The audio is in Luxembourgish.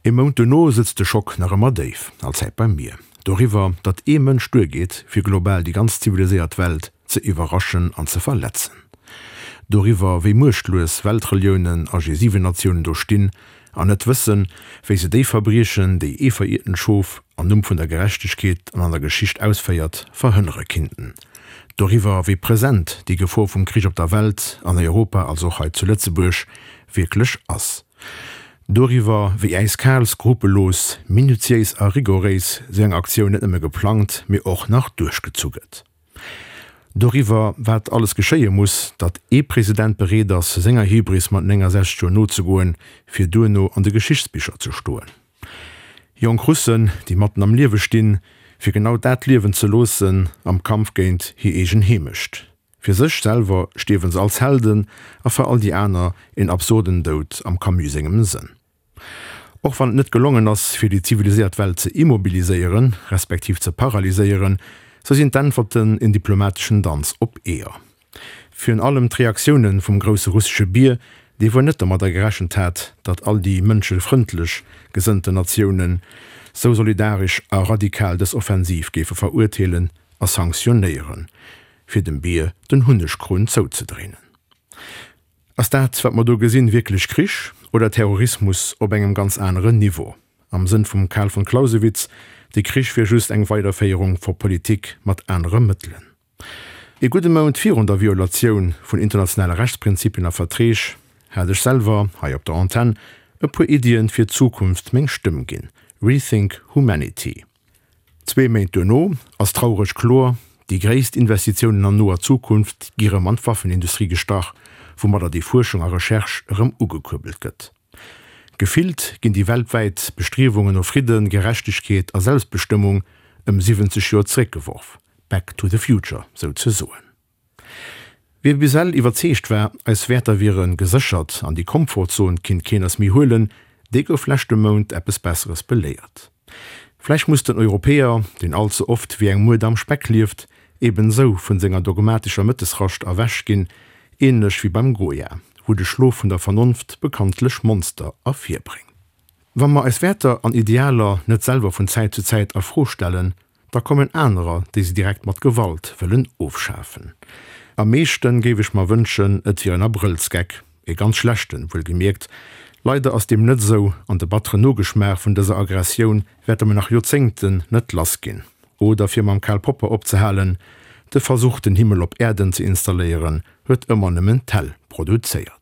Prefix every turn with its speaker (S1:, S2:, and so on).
S1: Ee Mount duerno sëtzt de Schock nach ëmmer déif, allzäit bei mir, doriwwer, datt ee Mënsch duergeet, fir global déi ganz ziviliséiert Welt ze iwwerraschen an ze verletzen. Doriwwer, wéi muechtlues Weltreliounen a G7-Natiounen do stinn an net wëssen, wéi se déi Verbriechen, déi ee verirtent Schof am Numm vun der Gerechtegkeet an an der Geschicht ausféiert, verhënnere kinnten. Doriwwer, wéi present déi Gefor vum Krich op der Welt, an Europa, also och hei zu Lëtzebuerg, wierklech ass. Doriwwer, wéi äiskal, skrupellos, minutiéis a rigoréis sou eng Aktioun net nëmme geplangt, mee och nach duerchgezu gëtt. Doriwwer, wat alles geschéie muss, datt ee President bereet ass, senger Hybris mat 69 Joer nozegoen, fir duerno an de Geschichtsbicher ze stoen. Jonk Russen, déi matten am Liewe stinn, fir genau dat liewen ze loossen am Kampf géint hir eegen Heemecht. Fir sech selwer stierwe se als Helden a fir all déi aner een absurden Doud am Camus sengem Sënn. Och wann et net gelongen ass, fir déi ziviliséiert Welt ze immobiliséieren, respektiv ze paralyséieren, sou sinn d'Äntwerten en diplomateschen Danz op Eeër. Virun allem d'Reaktioune vum grousse russesche Bier, dee wuel net domadder gerechent hat, datt all déi mënschefrëndlech gesënnten Natiounen sou solidaresch a radikal dës Offensiv géife verurteelen a sanktionéieren, fir dem Bier den Hunnegkrunn zouzedréinen. Ass dat, wat mer do gesinn, wierklech Krich oder Terrorismus op engem ganz aneren Niveau? Am Sënn vum Carl von Clausewitz, de Krich wier just eng Weiderféierung vor Politik mat anere Mëttelen. Ee gudde Mount virun der Violatioun vun internationale Rechtsprinzipien a Verträg hat ech selwer, hei op der Antenn, e puer Iddien fir d'Zukunft meng Stëmm ginn, Rethink Humanity. Zwee Méint duerno ass traureg kloer, déi gréisst Investitiounen an noer Zukunft gi rëm an d'Waffenindustrie gestach, woumadder déi Fuerschung a Recherche erëm ugekuerbelt gëtt. Gefillt ginn déi weltwäit Bestriewungen no Fridden, Gerechtegkeet a Selbstbestëmmung ëm 70 Joer zeréckgeworf, back to the future souzesoen. Wie bis ewell iwwerzeegt war, eis Wäerter wiere geséchert an déi Komfortzon kinnt keen eis méi huelen, dee gouf leschte Mount eppes Besseres beléiert. Vläicht muss den Europäer, deen all ze oft wéi eng Mued am Speck lieft, eben esou vun senger dogmatescher Mëttesrascht erwächt ginn, ähnlech wéi beim Goya, wou de Schlof vun der Vernonft bekanntlech Monster ervirbréngt. Wa mer eis Wäerter an Idealer net selwer vun Zäit zu Zäit a Fro stellen, Da kommen anerer, déi se direkt mat Gewalt wëllen ofschafen. Am meeschten géif ech mer wënschen, et wier en Abrëllsgeck, e ganz schlechten, wuelgemierkt. Leider ass deem net esou, an de batteren Nogeschmaach vun dëser Aggressioun wäerte mer nach Joerzéngten net lass ginn. Oder fir mam Karl Popper opzehalen, De Versuch, den Himmel op Äerden ze installéieren, huet ëmmer nëmmen d'Häll produzéiert.